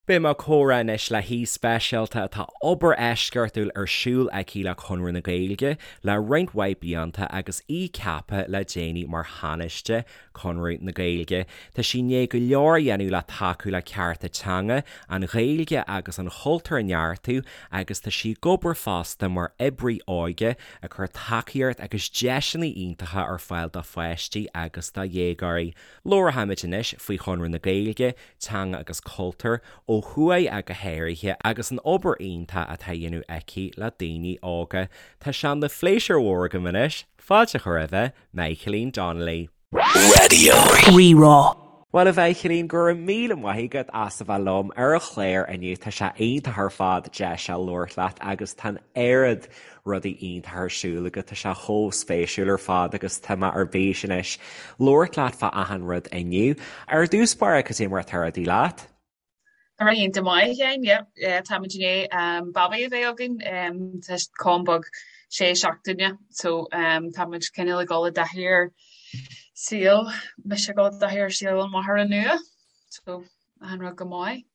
Beidh mé ag comhrá anois le haoi speisialta atá obair eisceachtúil ar siúl aici le Conradh na Gaeilge le roinnt mhaith blianta agus í ceaptha le déanaí mar Thánaiste Conradh na Gaeilge. Tá sí i ndiaidh go leor a dhéanamh le tacú le cearta teanga, an Ghaeilge agus an chultúr a neartú agus tá sí ag obair fosta mar oibrí óige ag cur tacaíocht agus deiseanna iontacha ar fáil do pháistí agus do dhéagóirí. Labharfaimid anois faoi Chonradh na Gaeilge, teanga agus cultúr, ó thuaidh ach go háirithe, agus an obair iontach atá á dhéanamh aici le daoine óga. Tá sé ina phléisiúr mhór agam anois fáilte a chur roimhe, Michaelín Donnelly. Raidió Rí-Rá. Bhuel, a Mhichaelín, go raibh míle maith agat as a bheith liom ar an chlár inniu. Tá sé iontach ar fad deis a labhairt leat agus tá an oiread rudaí iontacha ar siúl agat, tá sé chomh spéisiúil ar fad agus tá mé ar bís anois labhairt leat fá achan rud inniu. Ar dtús báire, cad é mar atá rudaí leat? Tá rudaí iontach maith, a Sheáin, yeah, yeah, táimid i ndiaidh um, babaí a bheith againn, um, tá Con beag sé seachtaine, so um, táimid cineál ag dul i dtaithí ar saol, mise ag dul i dtaithí ar saol an mháthara nua, so achan rud go maith.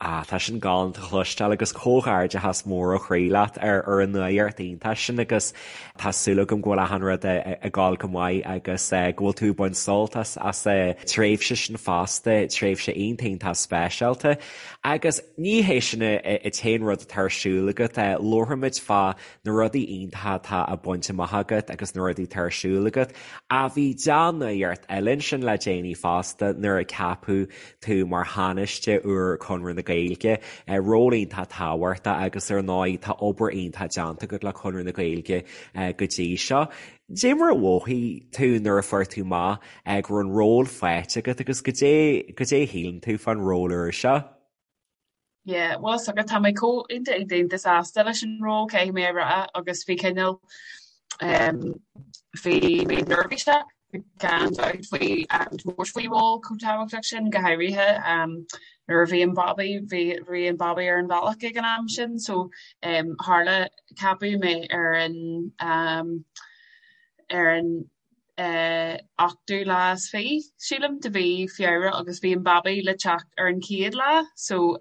Ah, tá sin galánta a chloisteáil agus comhghairdeachas mór ó chroí leat ar ar an nuacht iontach sin agus tá súil agam go bhfuil achan rud ag gabháil go maith agus go bhfuil tú ag baint sult as as an tréimhse sin fosta, tréimhse iontach iontach speisialta. Agus ní hé sin an t-aon rud atá ar siúl agat, labharfaimid fá na rudaí iontacha atá á baint amach agat agus na rudaí atá ar siúl agat. Ach bhí dea-nuacht eile ansin le déanaí fosta nuair a ceapadh tú mar Thánaiste úr Chonradh na Gaeilge, ról iontach tábhachtach agus ar ndóigh tá obair iontach déanta agat le Conradh na Gaeilge go dtí seo. Dé mar a mhothaigh tú nuair a fuair tú amach go raibh an ról faighte agat agus goidé goidé a shíleann tú fán ról úr seo? Yeah, bhuel is dócha tá mé chomh iontach iontach iontach sásta leis an ról caithfidh mé a rá agus bhí cineál um, bhí mé neirbhíseach gan dabht faoi um, tabhairt faoi ról chomh tábhachtach sin go háirithe um, nuair a bhí an babaí bhí bhí an babaí ar an bhealach ag an am sin so um, tharla ceapadh mé ar an um, ar an 28ú lá, sílim, de mhí Feabhra agus bhí an babaí le teacht ar an chéad lá so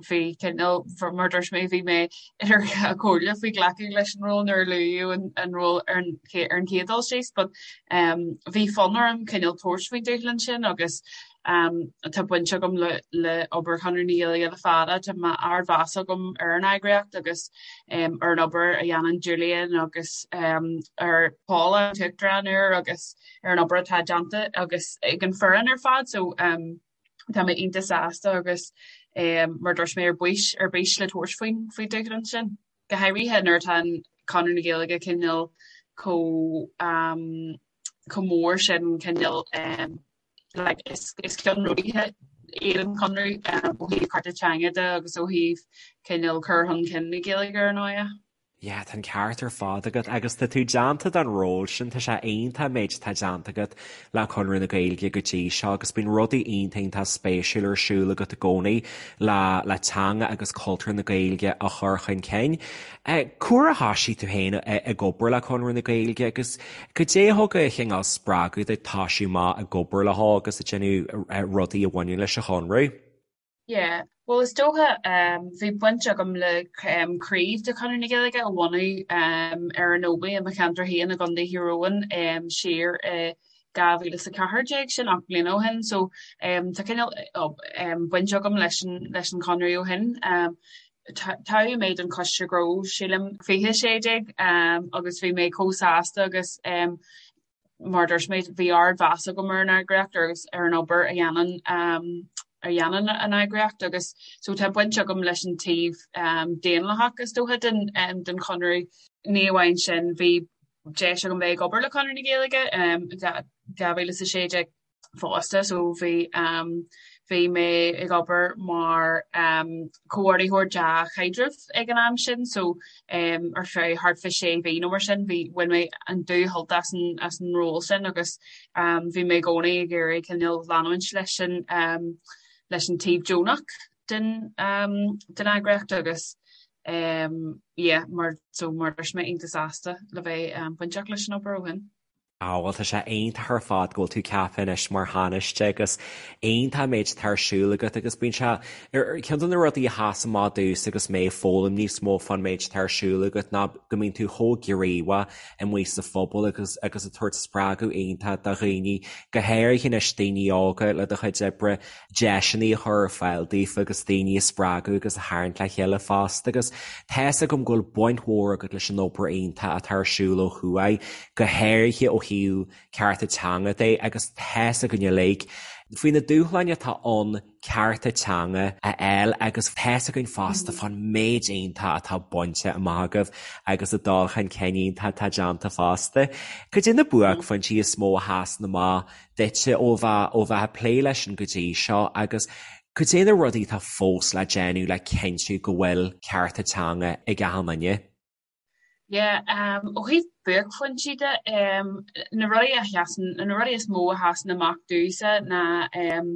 bhí cineál, mar a dúirt mé, bhí mé idir dhá chomhairle faoi ghlacadh leis an ról nuair a luadh an ról ar an chéad dul síos but bhí fonn orm cineál tabhairt faoin dúshlán sin agus Tá baint agam le le obair Chonradh na Gaeilge le fada, tá ardmheas agam ar an eagraíocht agus ar an obair a dhéanann Julian agus ar Paula an tUachtarán úr agus ar an obair atá déanta agus ag an foireann ar fad so tá mé iontach sásta agus mar a dúirt mé ar bís ar bís le tabhairt faoin faoin dúshlán sin. Go háirithe nuair atá an Conradh na Gaeilge cineál chomh chomh mór sin cineál like is is ceannródaithe iad an Conradh ó thaobh cearta teanga de agus ó thaobh cineál cur chun cinn na Gaeilge ar ndóigh. Yeah, tá an ceart ar fad agat agus tá tú déanta don ról sin, tá sé iontach an méid atá déanta agat le Conradh na Gaeilge go dtí seo agus bíonn rudaí iontach iontach spéisiúil ar siúl agat i gcónaí le le teanga agus cultúr na Gaeilge a chur chun cinn. Cá huair a thoisigh tú féin ag obair le Conradh na Gaeilge agus goidé a thug an cineál spreagadh duit toisiú amach ag obair leo agus ag déanamh rudaí a bhaineann leis an Chonradh? Yeah, bhuel is dócha bhí baint agam le craobh de Chonradh na Gaeilge a bhunú ar an Ómaigh i mo cheantar féin i gContae Thír Eoghain siar i 2014, sin 8 mbliana ó shin so tá cineál baint agam leis an leis an Chonradh ó shin. Toghadh mé don Choiste Gnó sílim 2016 agus bhí mé chomh sásta agus mar a dúirt mé bhí ardmheas agam ar an eagraíocht agus ar an obair a dhéanann a dhéanann an eagraíocht agus so tá baint agam leis an taobh daonlathach is dócha den den Chonradh. Ní amháin sin bhí deis agam bheith ag obair le Conradh na Gaeilge 2016 fosta so bhí bhí mé ag obair mar comhordaitheoir dea-chaidrimh ag an am sin so ar feadh thart fá sé mhí nó mar sin bhí bhain mé an dúshult as an as an ról sin agus bhí mé i gcónaí ag iarraidh cineál leanúint leis an leis an taobh deonach den den eagraíocht agus yeah mar so mar dúirt mé iontach sásta le bheith bainteach leis an obair ó shin. Á bhuel tá sé iontach ar fad go bhfuil tú ceaptha anois mar Thánaiste agus iontach an méid atá ar siúl agat agus bíonn sé, ceann de na rudaí a sheas amach domhsa agus mé ag foghlaim níos mó fán méid atá ar siúl agat ná go mbíonn tú chomh gníomhach amuigh sa phobal agus agus ag tabhairt spreagadh iontach do dhaoine, go háirithe anois daoine óga le do chuid oibre. deiseanna a chur ar fáil daofa agus daoine a spreagadh agus a tharraingt le chéile fosta agus tá's agam go bhfuil baint mhór agat leis an obair iontach atá ar siúl ó thuaidh, go háirithe ó thaobh cearta teanga de agus tá's againn uilig faoi na dúshláin atá ann cearta teanga a fháil agus tá's againn fosta fán méid iontach atá bainte amach agaibh agus an dul chun cinn iontach atá déanta fosta. Cad é na buaicphointí is mó a sheasann amach duitse ó bheith ó bheith ag plé leis sin go dtí seo agus cad é na rudaí atá fós le déanamh le cinntiú go bhfuil cearta teanga ag achan duine? Yeah, um, ó thaobh buaicphointí de, um, na rudaí a sheasann, na rudaí is mó a sheasann amach domhsa ná um,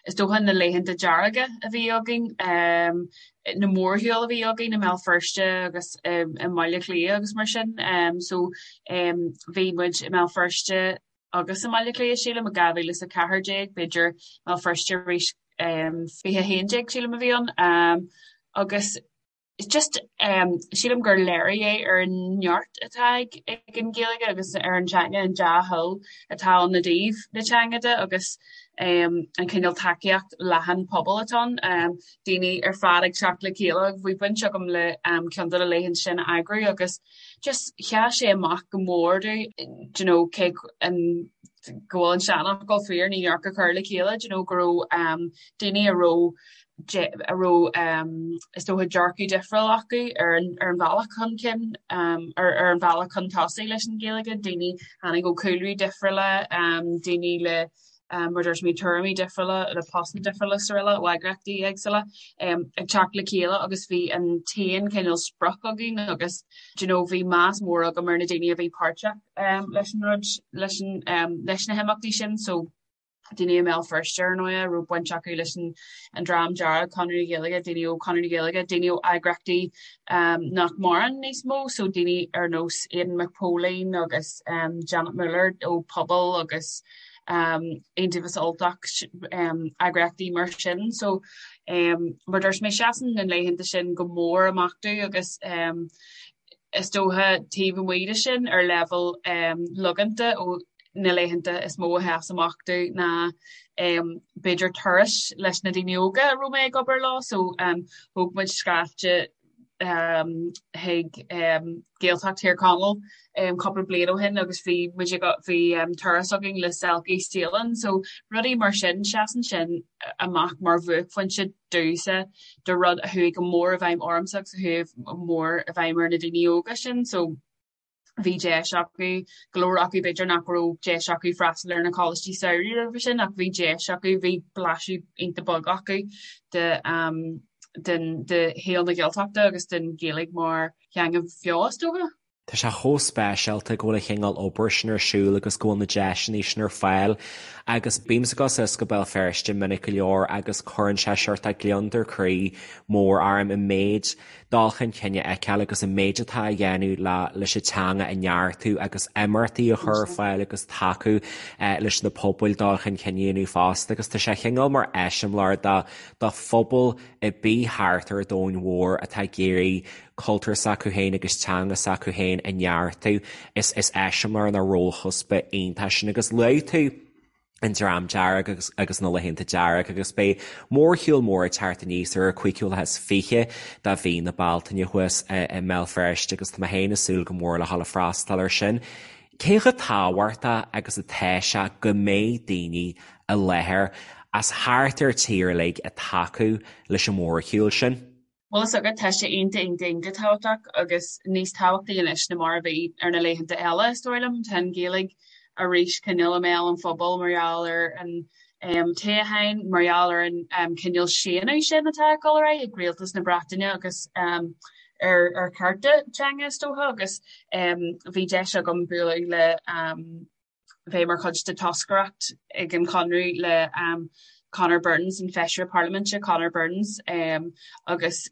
is dócha na laethanta dearga a bhí againn, um, na mórshiúil a bhí againn i mBéal Feirste agus um, i mBaile Átha Cliath agus mar sin. Um, so um, bhí muid i mBéal Feirste agus i mBaile Átha Cliath, sílim, i 2014, b'fhéidir mBéal Feirste arís 2011, sílim a bhí ann, agus just sílim gur léiriú é ar an neart atá ag an Ghaeilge agus ar an teanga, an dea-thoil atá ann i dtaobh na teanga de agus an cineál tacaíocht leathan pobail atá ann, daoine ar fad ag teacht le chéile agus bhí baint agam le ceann de na laethanta sin a eagrú agus just sheas sé amach go mór domh do you know cé an go bhfuil an seanfhocal fíor ní neart gur cur le chéile do you know go raibh um, daoine a raibh a raibh um, is dócha dearcadh difriúil acu ar an, ar an bhealach chun cinn um, ar, ar an bhealach chun tosaigh leis an Ghaeilge, daoine tháinig ó chúlraí difriúla, um, daoine le mar dúirt mé tuairimí difriúla le postanna difriúla is araile ó eagraíochtaí éagsúla ag teacht le chéile agus bhí an t-aon chineál sprioc againn agus do you know bhí meas mór agam ar na daoine a bhí páirteach leis an rud leis an leis na himeachtaí sin so daoine i mBéal Feirste ar ndóigh a raibh baint acu leis an an Dream Dearg, Conradh na Gaeilge, daoine ó Conradh na Gaeilge, daoine ó eagraíochtaí nach maireann níos mó so daoine ar nós Aidan Mac Póilín agus Janet Muller ó Pobal agus Iontaobhas Ultach, eagraíochtaí mar sin. So mar dúirt mé seasann na laethanta sin go mór amach domh agus is dócha taobh amuigh de sin ar leibhéal logánta ó na laethanta is mó a sheas amach domh ná b'fhéidir turais leis na daoine óga a raibh mé ag obair leo. So thóg muid scaifte chuig Gaeltacht Thír Chonaill cúpla bliain ó shin agus bhí muid ag bhí turas againn le Selkie Saolann so rudaí mar sin seasann sin amach mar bhuaicphointe domhsa de rud a chuaigh go mór i bhfeidhm ormsa agus a chuaigh go mór i bhfeidhm ar na daoine óga sin so bhí deis acu, go leor acu b'fhéidir nach raibh deis acu freastal ar na coláistí samhraidh roimhe sin ach bhí deis acu, bhí blaiseadh iontach beag acu de den de shaol na Gaeltachta agus den Ghaeilge mar theanga bheo is dócha. Tá sé chomh speisialta go bhfuil an chineál obair sin ar siúl agus go bhfuil na deiseanna sin ar fáil agus bímse ag dul suas go Béal Feirste minic go leor agus cuireann sé seort de gliondar croí mór orm an méid dul chun cinn a fheiceáil agus an méid atá á dhéanamh le leis an teanga a neartú agus imeachtaí a chur ar fáil agus tacú leis na pobail dul chun cinn a dhéanamh fosta agus tá sé chineál mar eiseamláir do do phobal ar bith thart ar an domhan mhór atá ag iarraidh cultúr s'acu féin agus teanga s'acu féin a neartú. Is is eiseamláir nó rólchuspa iontach sin agus luaigh tú an Dream Dearg agus agus na Laethanta Dearga agus beidh mórshiúl mór ag teacht aníos ar an 25ú lá de mhí na Bealtaine thuas i mBéal Feirste agus tá mé féin ag súil go mór le dhul ag freastal air sin. Cé chomh tábhachtach agus atá sé go mbeidh daoine i láthair as thart ar tír uilig ag tacú leis an mhórshiúl sin? Bhuel is dócha, tá sé iontach iontach iontach tábhachtach agus níos tábhachtaí anois ná mar a bhí ar na laethanta eile is dóigh liom. Tá an Ghaeilge arís cineál i mbéal an phobail mar gheall ar an toghchán, mar gheall ar an cineál séanadh sin atá ag dul ar aghaidh ag rialtas na Breataine agus ar ar chearta teanga is dócha agus bhí deis agam bualadh le bheith mar chuid de toscaireacht ag an Chonradh le Conor Burns, an Feisire Parlaiminte Conor Burns, agus.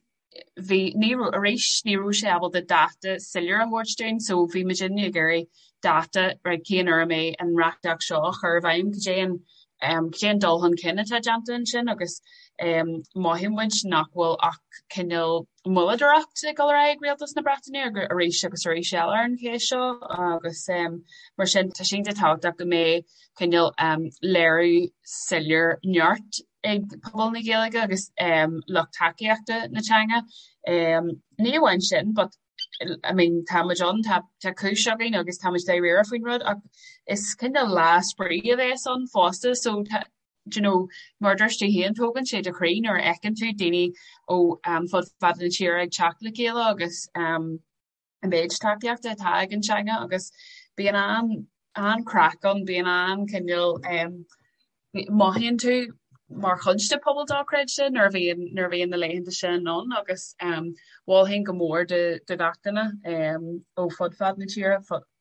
bhí ní raibh arís ní raibh sé ábalta dáta soiléir a thabhairt dúinn so bhí muidinne ag iarraidh dáta right cén uair a mbeidh an reachtaíocht seo á chur i bhfeidhm cad é an um, cad é an dul chun cinn atá déanta ansin agus um, mothaíonn muid nach bhfuil ach cineál moilleadóireacht ag dul ar aghaidh ag Rialtas na Breataine arís agus arís eile ar an cheist seo agus um, mar sin tá sé iontach tábhachtach go mbeidh cineál um, léiriú soiléir neart ag pobal na Gaeilge agus lucht tacaíochta na teanga. Ní amháin sin but I mean tá muid ann, tá tá cúis againn agus tá muid dáiríre faoin rud ach is cineál lá spraoi a bheas ann fosta so tá do you know mar a dúirt tú féin tógann sé do chroí nuair a fheiceann tú daoine ó fud fad na tíre ag teacht le chéile agus an méid tacaíochta atá ag an teanga agus bíonn an an-chraic ann, bíonn an-chineál mothaíonn tú mar chuid de pobal dochreidte nuair a bhíonn nuair a bhíonn na laethanta sin ann agus mholfainn go mór do do gach duine ó fud fad na tíre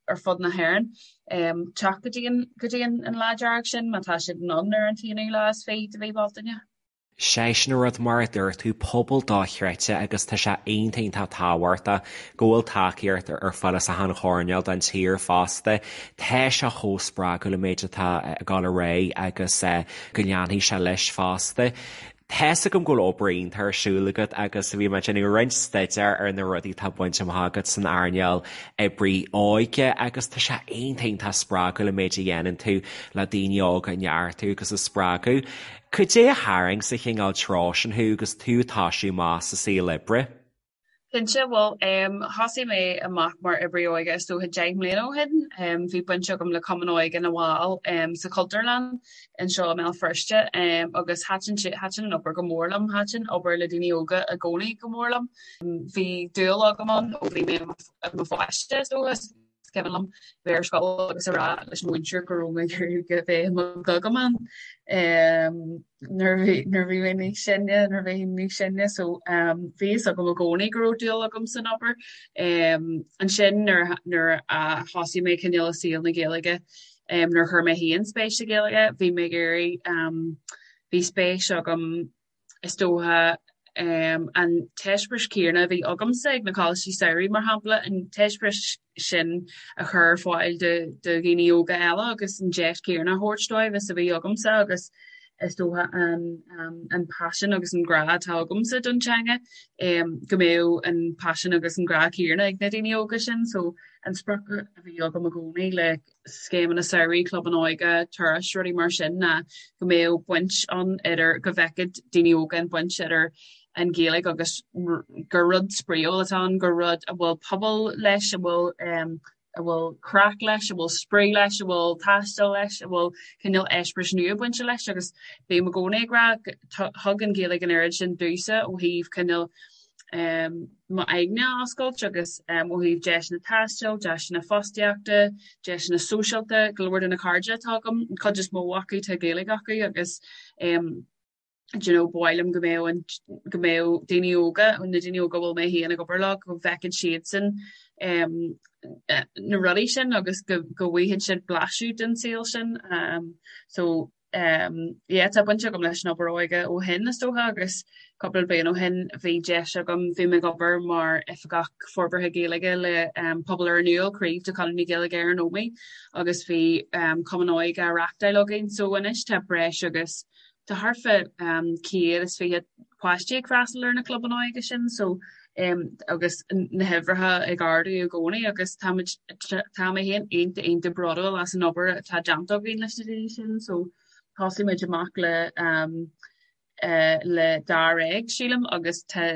ar fud na hÉireann teacht go dtí an go dtí an an lá dearg sin má tá siad in ann ar an t-aonú lá is fiche de mhí Bealtaine. Sé sin an rud, mar a dúirt tú, pobal dochreidte agus tá sé iontach iontach tábhachtach go bhfuil tacaíocht ar fáil as achan choirnéal den tír fosta. Tá sé chomh spreagúil an méid atá ag dul ar aghaidh agus go leanfaidh sé leis fosta. Tá's agam go bhfuil obair iontach ar siúl agat agus bhí mé ag déanamh roinnt staidéir ar na rudaí atá bainte amach agat san earnáil oibrí óige agus tá sé iontach iontach spreagúil an méid a dhéanann tú le daoine óga a neartú agus a spreagadh. Cad é a tharraing sa chineál treo sin thú agus tú ag toisiú amach sa saol oibre? Cinnte, bhuel, thosaigh mé amach mar oibrí óige is dócha 10 mbliana ó shin. Bhí baint agam le Cumann Óige na bhFál sa Chultúrlann anseo i mBéal Feirste agus thaitin sé, thaitin an obair go mór liom, thaitin obair le daoine óga i gcónaí go mór liom. Bhí dúil agam ann ó bhí mé i mo pháiste is dócha. Is cuimhin liom bheith ar scoil agus a rá leis an mhúinteoir go raibh mé ag iarraidh a bheith i mo Ghogaiman nuair a bhí nuair a bhí mé níos sine, nuair a bhí níos sine so bhí fhios agam i gcónaí go raibh dúil agam san obair. Ansin nuair nuair a thosaigh mé cineál i saol na Gaeilge, nuair a chuir mé féin spéis sa Ghaeilge, bhí mé ag iarraidh bhí spéis agam is dócha, an t-eispéireas céanna a bhí agamsa ag na coláistí samhraidh, mar shampla, an t-eispéireas sin a chur ar fáil do dhaoine óga eile agus an deis chéanna a thabhairt dóibh is a bhí agamsa agus is dócha an paisean agus an grá atá agamsa don teanga, go mbeadh an paisean agus an grá céanna ag na daoine óga sin. So an sprioc a bhí agam i gcónaí le scéimeanna samhraidh, clubanna óige, turais, rudaí mar sin ná go mbeadh baint ann idir, go bhfeicfeadh daoine óga an baint idir an Ghaeilge agus gur rud spraíúil atá ann, gur rud a bhfuil pobal leis, a bhfuil a bhfuil craic leis, a bhfuil spraoi leis, a bhfuil taisteal leis, a bhfuil cineál eispéiris nua bainte leis agus bím i gcónaí ag rá thug an Ghaeilge an oiread sin domhsa ó thaobh cineál m'aigne a oscailt agus ó thaobh deiseanna taistil, deiseanna fostaíochta, deiseanna sóisialta, go leor de na cairde atá agam, an chuid is mó acu tá Gaeilge acu agus do you know ba mhaith liom go mbeadh an go mbeadh daoine óga, na daoine óga a bhfuil mé féin ag obair leo, go bhfeicfeadh siadsan na rudaí sin agus go go bhfaighidh siad blaiseadh den saol sin. So yeah tá baint agam leis an obair óige ó shin is dócha agus cúpla bliain ó shin bhí deis agam, bhí mé ag obair mar Oifigeach Forbartha Gaeilge le Pobal Iorras Nua, craobh de Chonradh na Gaeilge ar an Ómaigh agus bhí cumann óige á reachtáil againn so anois tá breis agus tá thart fá 120 páistí ag freastal ar na clubanna óige sin so agus na huimhreacha ag ardú i gcónaí agus táimid tá mé féin iontach iontach bródúil as an obair atá déanta againn leis na daoine sin so thosaigh muid amach le le dáréag sílim agus tá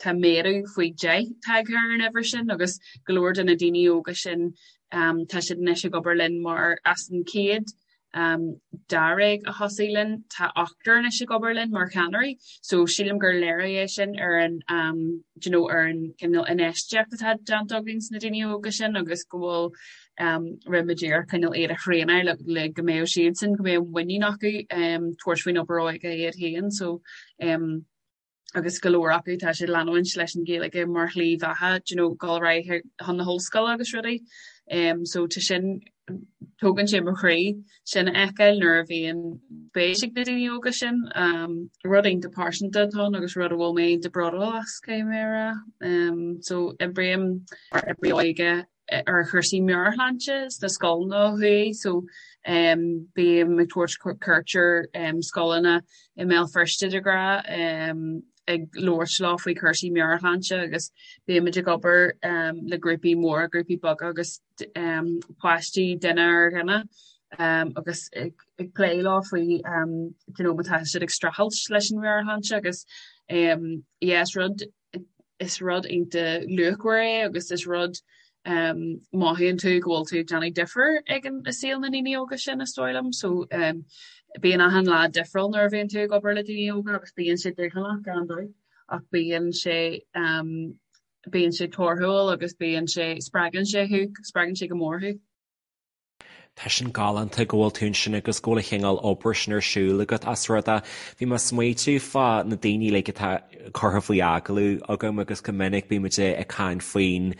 tá méadú faoi 10 tagtha ar an uimhir sin agus go leor de na daoine óga sin tá siad anois ag obair linn mar as an chéad dáréag a thosaigh linn, tá ochtar anois ag obair linn mar cheannairí so sílim gur léiriú é sin ar an do you know ar an cineál infheistíocht atá déanta againn sna daoine óga sin agus go bhfuil rinne muid iarracht cineál iad a thraenáil le le go mbeadh siadsan go mbeadh muinín acu tabhairt faoin obair óige iad féin so agus go leor acu tá siad leanúint leis an Ghaeilge mar shlí bheatha do you know dul ar aghaidh chun na hollscoile agus rudaí. Um, so tá sin Tógann sé mo chroí sin a fheiceáil nuair a bhíonn spéis ag na daoine óga sin. Rud iontach pearsanta atá ann agus rud a bhfuil mé iontach bródúil as, caithfidh mé a rá. So oibrím mar oibrí óige ar chúrsaí meabhairshláinte sna scoileanna ó thuaidh so bím ag tabhairt cuairt ar scoileanna i mBéal Feirste de ghnáth ag labhairt leo faoi chúrsaí meabhairshláinte agus bímid ag obair le grúpaí móra, grúpaí beaga agus páistí duine ar dhuine agus ag plé leo faoi you know má tá siad ag streachailt leis an mheabhairshláinte agus yeah is rud is rud iontach luachmhar é agus is rud mothaíonn tú go bhfuil tú ag déanamh difear ag an i saol na ndaoine óga sin is dóigh liom. So bíonn achan lá difriúil nuair a bhíonn tú ag obair le daoine óga agus bíonn sé dúshlánach gan dabht ach bíonn sé bíonn sé torthúil agus bíonn sé spreagann sé thú, spreagann sé go mór thú. Tá sin galánta go bhfuil tú ansin agus go bhfuil an chineál obair sin ar siúl agat as rud é. Bhí mé ag smaoitiú fá na daoine uilig atá curtha faoi agallamh agam agus go minic bímid ag caint faoin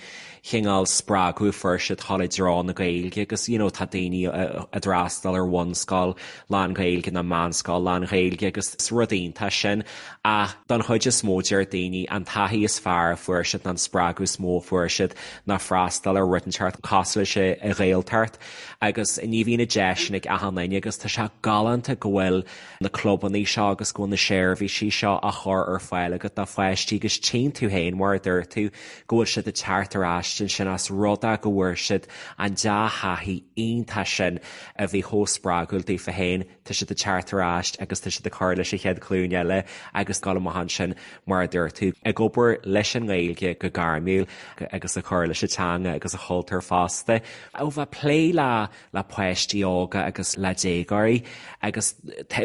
chineál spreagadh a fuair siad dul i dtreo na Gaeilge agus you know tá daoine a d'fhreastail ar bhunscoil lán-Ghaeilge nó meánscoil lán-Ghaeilge agus is rud iontach sin ach don chuid is mó deir daoine an taithí is fearr a fuair siad nó an spreagadh is mó a fuair siad ná freastal ar rud inteacht cosúil leis an Ghaeltacht agus ní bhíonn an deis sin ag achan duine agus tá sé galánta go bhfuil na clubanna seo agus go bhfuil na seirbhísí seo á chur ar fáil agat do pháistí agus tchíonn tú féin mar a dúirt tú go bhfuil siad ag teacht ar ais ansin as rud é go bhfuair siad an dea-thaithí iontach sin a bhí chomh spreagúil daofa féin. Tá siad ag teacht ar ais agus tá siad ag cur leis an chéad ghlúin eile agus dul amach ansin, mar a dúirt tú, ag obair leis an nGaeilge go gairmiúil agus ag cur leis an teanga agus an chultúr fosta. Ó bheith ag plé le le páistí óga agus le déagóirí agus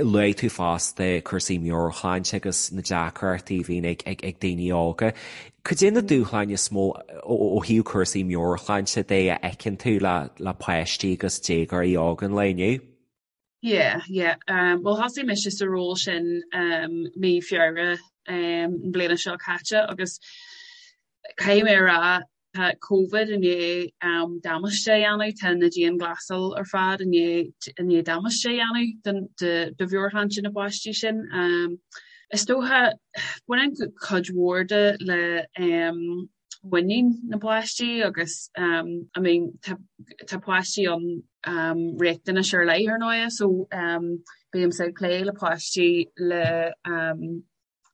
luaigh tú fosta cúrsaí meabhairshláinte agus na deacrachtaí a bhíonn ag ag daoine óga. Cad é na dúshláin is mó ó thaobh cúrsaí meabhairshláinte de a fheiceann tú le le páistí agus déagóirí óga an lae inniu? Yeah, yeah. Um, well thosaigh mise sa ról sin um, mí Feabhra um, an bliana seo caite agus caithfidh mé a rá tá Covid i ndiaidh um, damáiste a dhéanamh, tá na dianghlasáil ar fad i ndiaidh i ndiaidh damáiste a dhéanamh don do do mheabhairshláinte na bpáistí sin. Um, is dócha baineann cuid mhór de le um, muinín na bpáistí agus um, I mean tá tá páistí ann um, riachtanais ar leith ar ndóigh so um, bímse ag plé le páistí le um,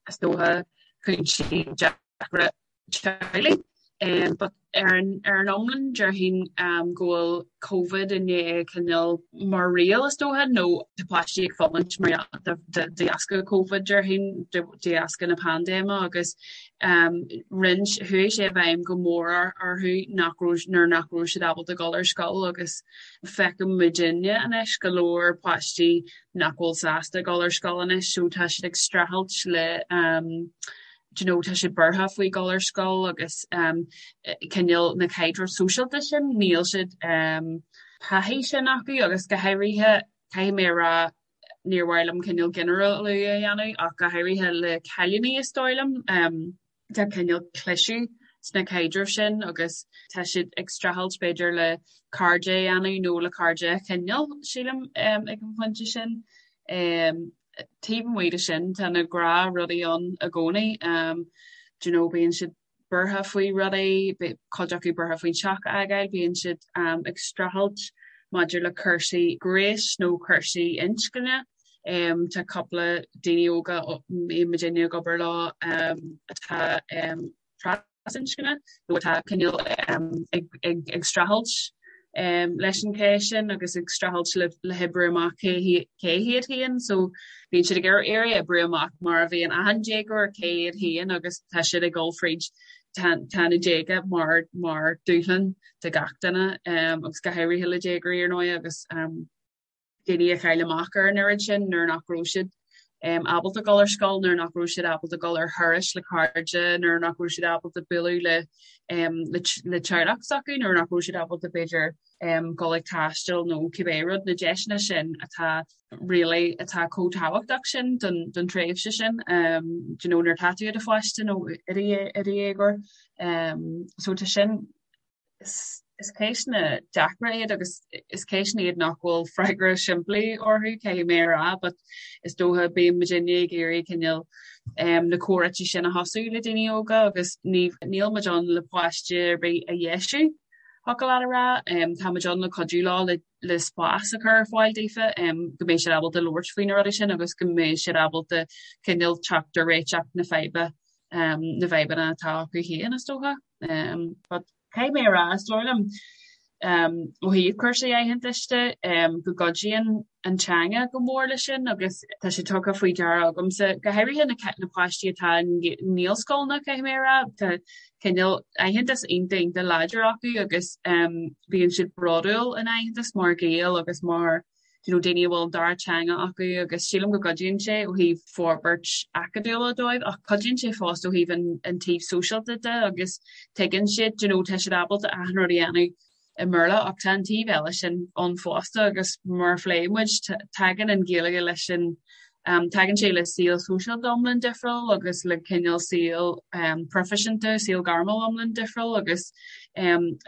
is dócha cúinsí deacra teaghlaigh. Um, but ar an, ar an iomlán déarfainn um, go bhfuil Covid i ndiaidh cineál mar riail is dócha nó tá páistí ag fulaingt mar de dheasca Covid déarfainn de dheasca na paindéime agus rinne, chuaigh sé i bhfeidhm go mór orthu nach raibh, nuair nach raibh siad ábalta dul ar scoil agus feiceann muidinne anois go leor páistí nach bhfuil sásta dul ar scoil anois so tá siad ag streachailt le do you know tá siad buartha faoi dhul ar scoil agus cineál na caidrimh sóisialta sin níl siad taithí sin acu agus go háirithe caithfidh mé a rá níor mhaith liom cineál ginearálú a dhéanamh ach go háirithe le cailíní is dóigh liom tá cineál cliseadh sna caidrimh sin agus tá siad ag streachailt b'fhéidir le cairde a dhéanamh nó le cairde a choinneáil sílim ag an phointe sin. Taobh amuigh de sin tá na gnáthrudaí ann i gcónaí do you know bíonn siad buartha faoi rudaí, cuid acu buartha faoin teach a fhágáil, bíonn siad ag streachailt maidir le cúrsaí gnéis nó cúrsaí inscne. Tá cúpla daoine óga a mbíonn muidinne ag obair leo atá trasinscne nó atá cineál ag streachailt leis an cheist sin agus ag streachailt le hoibriú amach cé hiad féin. So bíonn siad ag iarraidh oibriú amach mar a bhíonn achan déagóir cé hiad féin agus tá siad ag dul fríd tá na déaga mar mar dúshlán do gach duine agus go háirithe le déagóirí ar ndóigh agus daoine a chaill amach ar an oiread sin nuair nach raibh siad ábalta dul ar scoil, nuair nach raibh siad ábalta dul ar thurais le cairde, nuair nach raibh siad ábalta bualadh le le teaghlach s'acu, nuair nach raibh siad ábalta b'fhéidir dul ag taisteal nó cibé rud, na deiseanna sin atá really atá chomh tábhachtach sin don don tréimhse sin do you know nuair atá tú i do pháiste nó i do dhéagóir. So tá sin. Is ceisteanna deacra iad agus is ceisteanna iad nach bhfuil freagra simplí orthu, caithfidh mé a rá, but is dócha bíonn muidinne ag iarraidh cineál na comhráite sin a thosú le daoine óga agus ní níl muid ann le páiste ar bith a dheisiú, thiocfadh leat a rá. Tá muid ann le cuidiú leo le le spás a chur ar fáil daofa go mbeidh siad ábalta labhairt faoi na rudaí sin agus go mbeidh siad ábalta cineál teacht ar réiteach na faidhbe na bhfadhbanna atá acu féin is dócha. But Caithfidh mé a rá, is dóigh liom, ó thaobh cúrsaí aitheantais de, go gcuidíonn an teanga go mór leis sin agus tá sé tugtha faoi deara agamsa, go háirithe na páistí atá i nGaelscoileanna, caithfidh mé a rá, tá cineál aitheantas iontach iontach láidir acu agus bíonn siad bródúil ina n-aitheantas mar Ghaeil agus mar you know, daoine a bhfuil an dara teanga acu agus sílim go gcuidíonn sé ó thaobh forbairt acadúla dóibh ach cuidíonn sé fosta ó thaobh an, an taobh sóisialta de agus tuigeann siad, you know, tá siad ábalta achan rud a dhéanamh i mBéarla ach tá an taobh eile sin ann fosta agus mar a phléigh muid, tagann an Ghaeilge leis an Tagann sé le saol sóisialta iomlán difriúil agus le cineál saol proifisiúnta, saol gairmiúil iomlán difriúil agus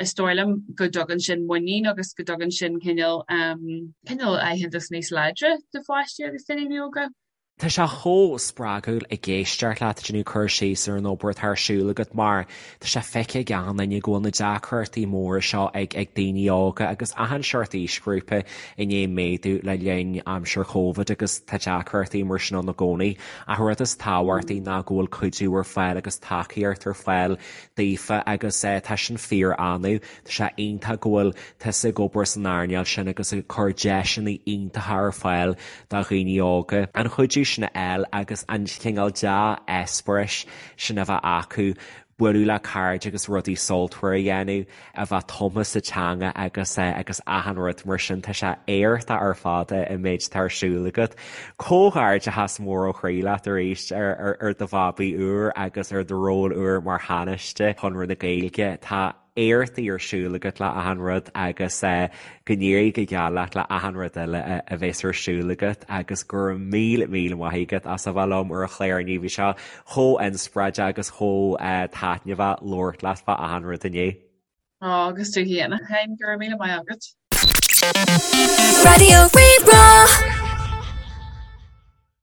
is dóigh liom go dtugann sin muinín agus go dtugann sin cineál cineál aitheantas níos láidre do pháistí agus daoine óga. Tá sé chomh spreagúil ag éisteacht leat ag déanamh cur síos ar an obair atá ar siúl agat mar tá sé feicthe ag achan duine go bhfuil na deacrachtaí móra seo ag ag daoine óga agus achan seort aoisghrúpa i ndiaidh méadú le linn aimsir Covid agus tá deacrachtaí mar sin ann i gcónaí. Ach an rud is tábhachtaí ná go bhfuil cuidiú ar fáil agus tacaíocht ar fáil daofa agus tá sin fíor-annamh. Tá sé iontach go bhfuil tusa ag obair san earnáil sin agus ag cur deiseanna iontacha ar fáil do dhaoine óga an cuidiú sin a fháil agus an cineál dea-eispéiris sin a bheith acu bualadh le cairde agus rudaí sultmhar a dhéanamh, a bheith tumtha sa teanga agus agus achan rud mar sin. Tá sé éachtach ar fad an méid atá ar siúl agat. Comhghairdeachas mór ó chroí leat arís ar ar do bhabaí úr agus ar do ról úr mar Thánaiste Chonradh na Gaeilge. Tá éachtaí ar siúl agat le achan rud agus go n-éirí go geal leat le achan rud eile a bheas ar siúl agat agus go raibh míle míle maith agat as a bheith liom ar an chlár inniu. Bhí sé chomh inspioráideach agus chomh taitneamhach labhairt leat fá achan rud inniu. Á, agus tú féin, a Sheáin, go raibh míle maith agat. Raidió Rí-Rá.